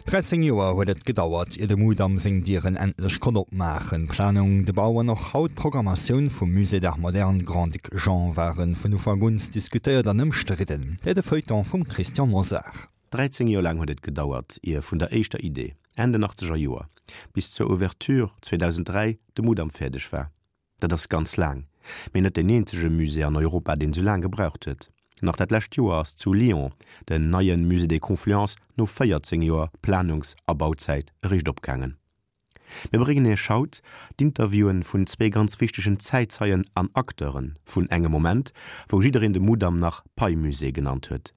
13 Joer huet et gedauert, ier de Mudam seng Dieren endlech konnt opmaachen. D'Planung, de Bau an och haut d'Programmatioun vum Musée d'Art Moderne Grand-Duc Jean ware vun Ufank un diskutéiert an ëmstridden. Hei de Feuilleton vum Christian Mosar. 13 Joer laang huet et gedauert, ier vun der éischter Idee, Enn den achtzeger Joer, bis zur Ouverture 2003 de Mudam fäerdeg war. Dat ass ganz laang, mee net deen eenzege Musée an Europa, deen sou laang gebraucht huet. Nach dat lescht Joer ass zu Lyon den neie Musée des Confluences no 14 Joer Planungs a Bauzäit eréischt opgaangen. Mir bréngen Iech haut d'Interviewen vun zwee ganz wichtegen Zäitzeien an Acteure vun engem Moment, wou jiddereen de Mudam nach Pei-Musée genannt huet.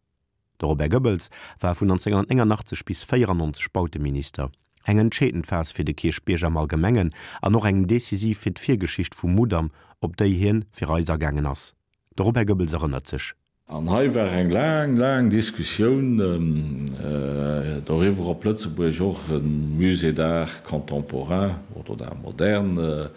De Robert Goebbels war vun 1989 bis 94 Bauteminister, eng entscheedend Phas fir de Kierchbierg am Allgemengen an och eng decisiv fir d'Virgeschicht vum Mudam, op déi hien fir eis agaangen ass. De Robert Goebbels erënnert sech. An hei war eng laang, laang Diskussioun doriwwer, ob Lëtzebuerg och e Musée d'art contemporain oder d'art moderne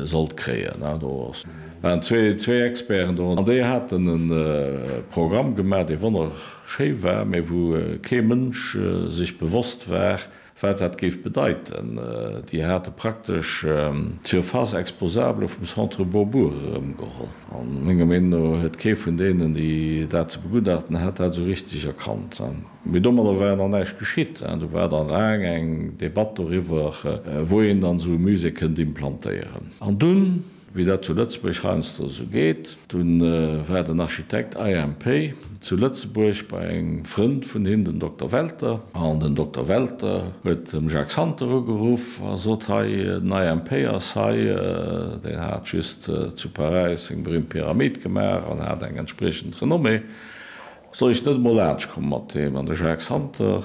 sollt kréien. Do waren zwee Experten do an déi haten e Programm gemaach, dee wonnerschéi war, mä wou kee Mënsch sech bewosst war, wat dat géif bedeiten. Déi hate praktesch d'Surface exposable vum Centre Beaubourg erëmgeholl. An menger Meenung no huet kee vun deenen, déi dat ze begutachten hat, dat esou richteg erkannt. Mee domadder war nach näischt geschitt. Do war dann laang eng Debatt doriwwer, wou een dann esou e Musée kënnt implantéieren. An dunn, wéi dat zu Lëtzebuerg heiansdo esou geet, dunn war den Architekt IMP zu Lëtzebuerg bei engem Frënd vun him, den Dokter Welter. An den Dokter Welter huet dem Jacques Santer ugeruff a sot, Hei, den IMP ass hei, deen hat just zu Paräis seng berühmt Pyramid gemaach an hat eng entspriechend Renommée. Soll ech net emol laanscht komme mat deem? An de Jacques Santer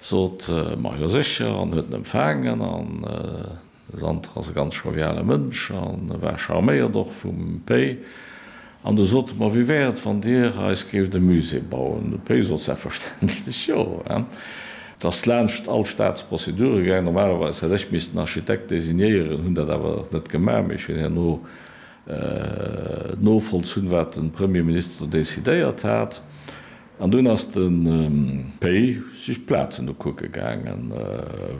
sot, Ma jo sécher, an huet en empfaangen. An de Santer ass e ganz joviale Mënsch a war charméiert och vum Pei. An du sot e, Ma wéi wär et, wann Dir eis géift e Musée bauen? De Pei sot selbstverständlech jo. Et ass laanscht all Staatsprozedure gaangen. Normalerweis hätt ech missten Architekt designéieren, hunn dat awer net gemaach, mee ech hunn herno novollzunn, wat de Premierminister do decidéiert hat. An dunn ass de Pei sech d'Plazen ukucke gaangen,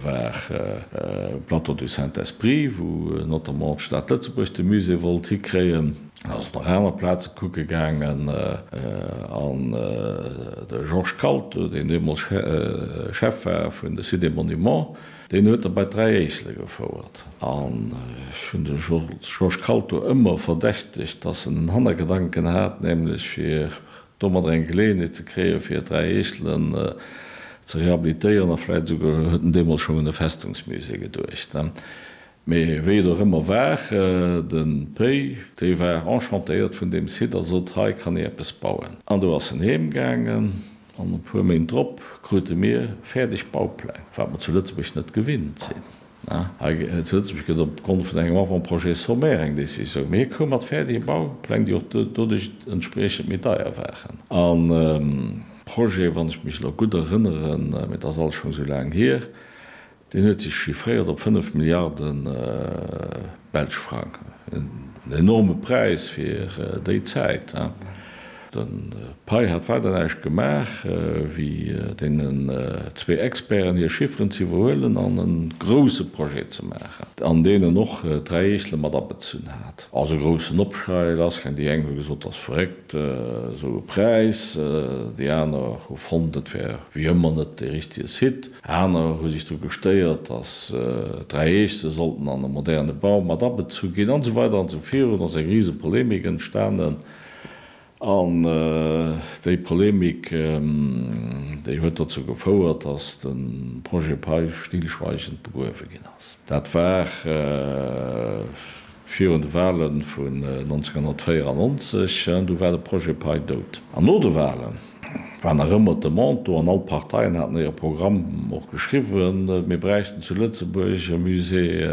war um Plateau du Saint-Esprit, wou notamment d'Stad Lëtzebuerg de Musée wollt hikréien. En ass och nach aner Plaze kucke gaangen. An de Georges Kalto, deen deemools Chef war vun de Sites et Monuments, Deen huet der bei d'Dräi Éisele gefouert. An ech hunn de Georges Kalto ëmmer verdächtegt, dass en en Hannergedanken hat, nämlech fir domadder eng Geleeënheet ze kréien, fir d'Dräi Eechelen ze rehabilitéieren. A vläicht esouguer huet en deemools schonn un e Festungsmusée geduecht. Mee wéi et och ëmmer war, de Pei, dee war enchantéiert vun deem Site a sot, Hei kann ee eppes bauen. An du ass en heem gaangen an e puer Méint drop krute mir fäerdeg Baupläng, wat mer zu Lëtzebuerg net gewinnt sinn. Hei zu Lëtzebuerg gëtt op Grond vun engem Avant-projet sommaire eng Décisioun, mee hie koum mat fäerdege Baupläng, déi och doduerch entspriechend méi deier waren. An Projet, wann ech mech elo gutt erënneren, mee et ass alles schonn esou laang hier, Deen huet sech chiffréiert op 5 Milliarde belsch Frang. En enorme Präis fir déi Zäit. De Pei hat weider näischt gemaach, wéi deenen zwee Experten hir Chifferen ze iwwerhuelen an e grousse Projet ze maachen, an deen en och d'Dräi Eechele mat abezunn hat. Ass e groussen Opschrei lassgaang. Déi eng hu gesot, dat ass verréckt, esou e Präis. Déi aner hu fonnt, et wär wéi ëmmer net dee richtege Site. Aner hu sech dru gestéiert, datt d'Dräi Eechse sollten an e moderne Bau mat abezu ginn, an esou weider an esou virun. Ass eng rise Polemik entstanen. An déi Polemik, déi huet dozou gefouert, datt de Projet Pei stillschweigend begruewe ginn ass. Dat war virun de Wale vun 1994. Du war de Projet Pei dout. An no de Walen war nach ëmmer d'Demande do, an all d'Parteien haten hire Programm och geschriwwen, mir bräichten zu Lëtzebuerg e Musée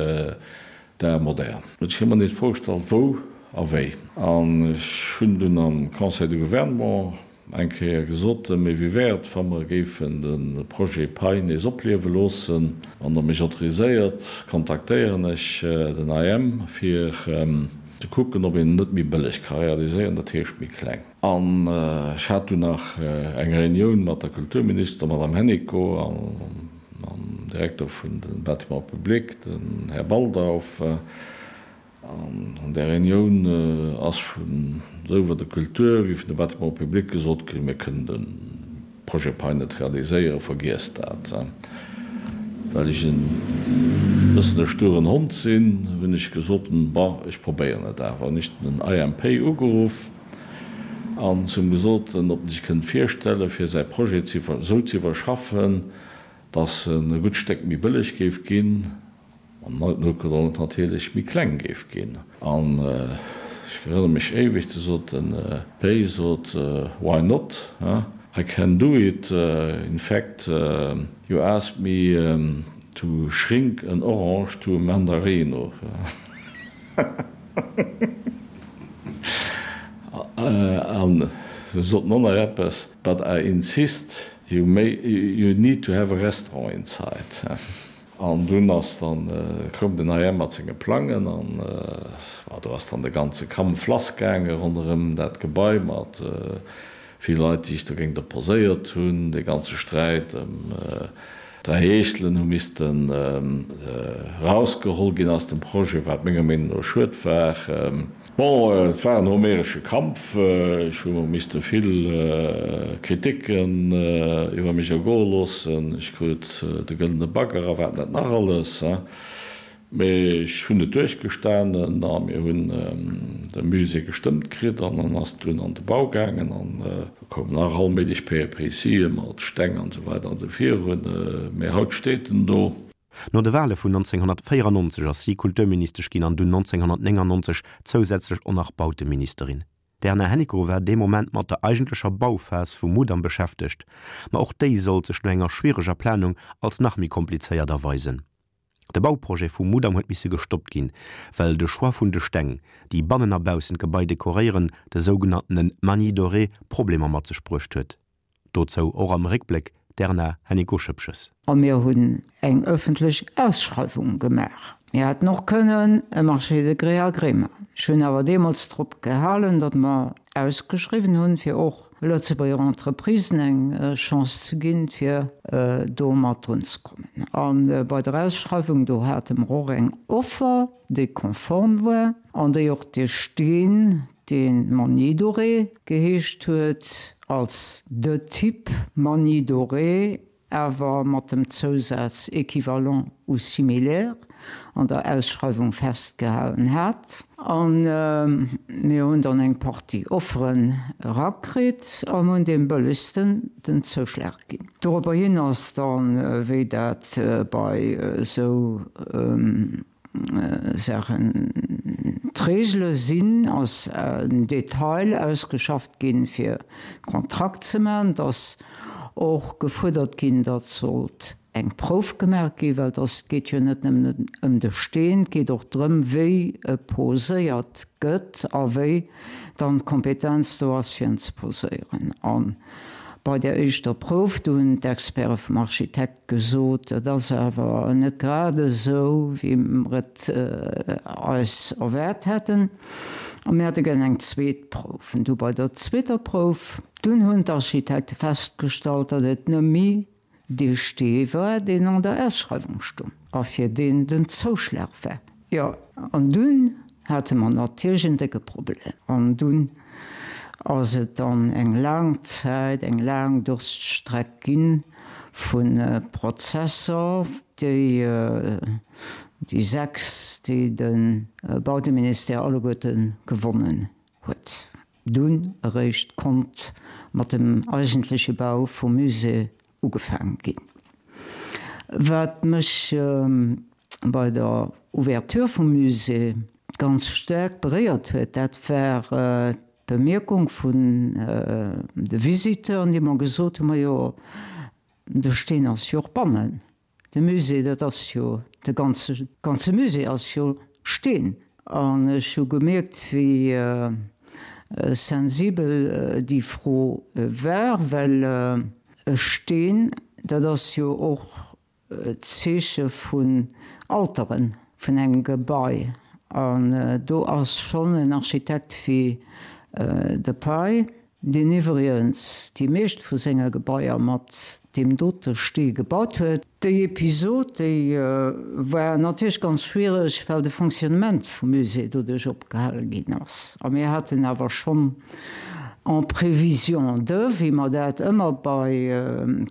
d'art moderne. Ech hu mer nees d'Fro gestallt, wou a wéi. An ech hunn dunn am Conseil de Gouvernement eng Kéier gesot, Mee wéi wär et, wa mer géifen de Projet Pei nees opliewe loossen? Wann Der mech autoriséiert, kontaktéieren ech den IM, fir. ze kucken, ob een en net méi bëlleg ka realiséieren, dat heescht méi kleng. An ech hat dunn nach eng Reunioun mat der Kulturminister, der Madame Hennicot, a mam Direkter vun de Bâtiments publics, den Här Baldauf. An an där Reunioun ass vun esouwuel der Kultur wéi vun de Bâtiments publics gesot ginn, mir kënnen de Projet Pei net realiséieren, vergiesst dat. Well ech e bëssen e sturen Hond sinn, hunn ech gesot, bon, ech probéieren et awer. Hunn ech den IMP ugeruff an zu him gesot, ob en sech kënnt virstellen, fir säi Projet esou ze iwwerschaffen, dass en e gutt Stéck méi bëlleg géif ginn. An noutgedrongen natierlech méi kleng géif ginn. An ech erënnere mech éiweg, du sot den Pei, sot, Why not, huh? I can do it. In fact, you asked me to shrink an orange to a mandarino. An se sot en och nach eppes, But I insist, you may, you need to have a restaurant inside. An dunn ass dann, koum den IM mat senge Plangen an ma do ass dann de ganze Kampf lass gaange ronderëm dat Gebai mat vill Leit, déi sech dogéint opposéiert hunn. Dee ganze Sträit ëm d'Dräi Heeschtelen hu missten erausgeholl ginn aus dem Projet, wat menger Meenung no schued war. Bon, et war en homeresche Kampf. Ech hu misste vill Kriticken iwwer mech ergoe loossen. Ech krut de gëllene Bagger a wat net nach alles. Mee ech hunn et duerchgestanen a mir hunn de Musée gestëmmt kritt an en ass dunn an de Bau gaangen an do koumen nach all méiglech Péripétië mat Steng an esou weider an esou virun. Mee haut steet en do. No de Wale vun 1994 ass si Kulturministesch ginn an dunn 1999 zousätzlech och nach Bauteministerin. D'Erna Hennicot war dee Moment mat der eigentlecher Bauphas vum Mudam beschäftegt, ma och déi sollt sech no enger schwiereger Planung als nach méi komplizéiert erweisen. De Bauprojet vum Mudam huet misse gestoppt ginn, well de Choix vun de Steng, déi bannen a baussen d'Gebai dekoréieren, de sougenanntene Manie doré, Problemer mat sech bruecht huet. Dozou och am Réckbléck d'Erna Hennicot-Schoepges. A mir hunn eng ëffentlech Ausschreiwung gemaach. Mir hätten och kënnen e Marché de gré à gré maachen. Ech hunn awer deemools drop gehalen, datt mer ausgeschriwwen hunn, fir och Lëtzebuerger Entreprisen eng Chance ze ginn, fir do mat drun ze kommen. A bei der Ausschreiwung, do hate mer och eng Offer, déi konform war an déi och de Steen, dee Magny doré geheescht huet, als de Type Magny doré, awer mat dem Zousaz équivalent ou similaire an der Ausschreiwung festgehalen hat. A mir hunn dann eng Partie Offeren erakritt an hunn deem bëllegsten den Zouschlag ginn. Doropperhin ass dann, wéi dat bei esou Saachen d'Regele sinn, ass en Detail ausgeschafft ginn, fir Kontrakt ze maachen. Et ass och gefuerdert ginn, datt sollt eng Prouf gemaach ginn, well et ass, et geet jo net nëmmen ëm de Steen, et geet och drëm, wéi e poséiert gëtt a wéi dann d'Kompetenz do ass, fir en ze poséieren. A bei där éischter Prouf, do hunn d'Experte vum Architekt Gesot, et ass awer net grad esou, wéi mer et eis erwaart hätten, a mir hätte gär eng zweet Prouf. An du bei der zweeter Prouf, dunn hunn d'Architekte festgestallt, datt et nëmme dee Stee war, deen an der Ausschreiwung stung a fir deen den Zouschlag war. Jo, an dunn hate mer natierlech en décke Problem. An dunn ass et dann eng laang Zäit, eng laang Durststreck gi vu Prozesser, déi déi 6, déi de Bauteministère alleguerte gewonnen huet. Dunn eréischt konnt mat dem eigentleche Bau vum Musée ugefaange ginn. Wat mech bei der Ouverture vum Musée ganz staark beréiert huet, dat war d'Bemierkung vun de Visiteuren, déi mer gesot hunn, Majo, de Steen ass jo och bannen. De Musée, dat ass jo, de ganze, ganze Musée ass jo Steen. An ech hu gemierkt, wéi sensibel déi Fro war, well e Steen, dat ass jo och d'Zeeche vun Alteren, vun engem Gebai. An do ass schonn en Architekt wéi de Pei, deen iwwregens déi meescht vu senge Gebaier mat deem dote Stee gebaut huet. Déi Episod, déi war natierlech ganz schwiereg, well de Fonctionnement vum Musée doduerch opgehale ginn ass. A mir haten awer schonn en prévision de, wéi mer dat ëmmer bei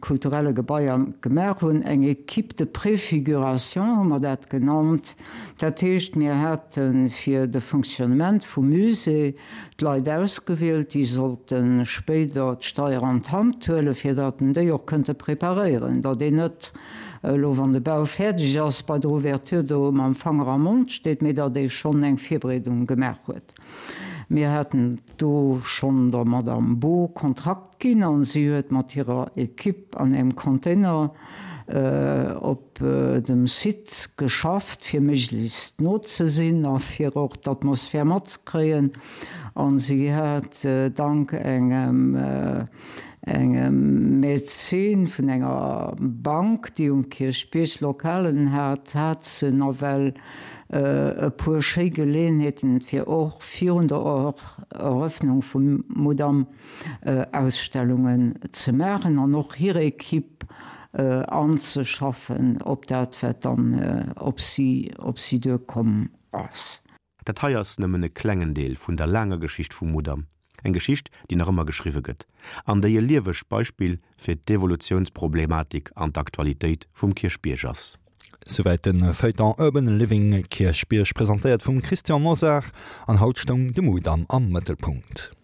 kulturelle Gebaier gemaach hunn, eng Équipe de préfiguration hu mer dat genannt, Dat heescht, mir hate fir de Fonctionnement vum Musée d'Leit ausgewielt, déi sollte spéider d'Steier an d'Hand huelen, fir datt en déi och kënnte preparéieren, datt een net elo, wann de Bau fäerdeg ass, bei der Ouverture do mam Fanger am Mond steet, mee datt ee schonn eng Virbereedung gemaach huet. Mir haten do schonn der Madame Bo Kontrakt ginn a si huet mat hirer Equipe an engem Container op dem Site geschafft, fir méiglechst no ze sinn a fir och d'Atmosphär matzekréien. A si hat dank engem engem Mäzen vun enger Bank, déi um Kierchbierg Lokalen hat, hat se nawell e puer schéi Geleeënheeten, fir och virun der Erëffnung vum Mudam Ausstellungen ze maachen an och hir Equipe anzeschaffen op dat, wat dann op si op si duerkomm ass. Dat hei ass nëmmen e klengen Deel vun der laanger Geschicht vum Mudam, eng Geschicht, déi nach ëmmer geschriwwe gëtt an déi e liewegt Beispill fir d'Evolutiounsproblematik an d'Aktualitéit vum Kierchbierg ass. Souwäit de Feuilleton Urban Living Kierchbierg, presentéiert vum Christian Mosar, an haut stoung de Mudam am Mëttelpunkt.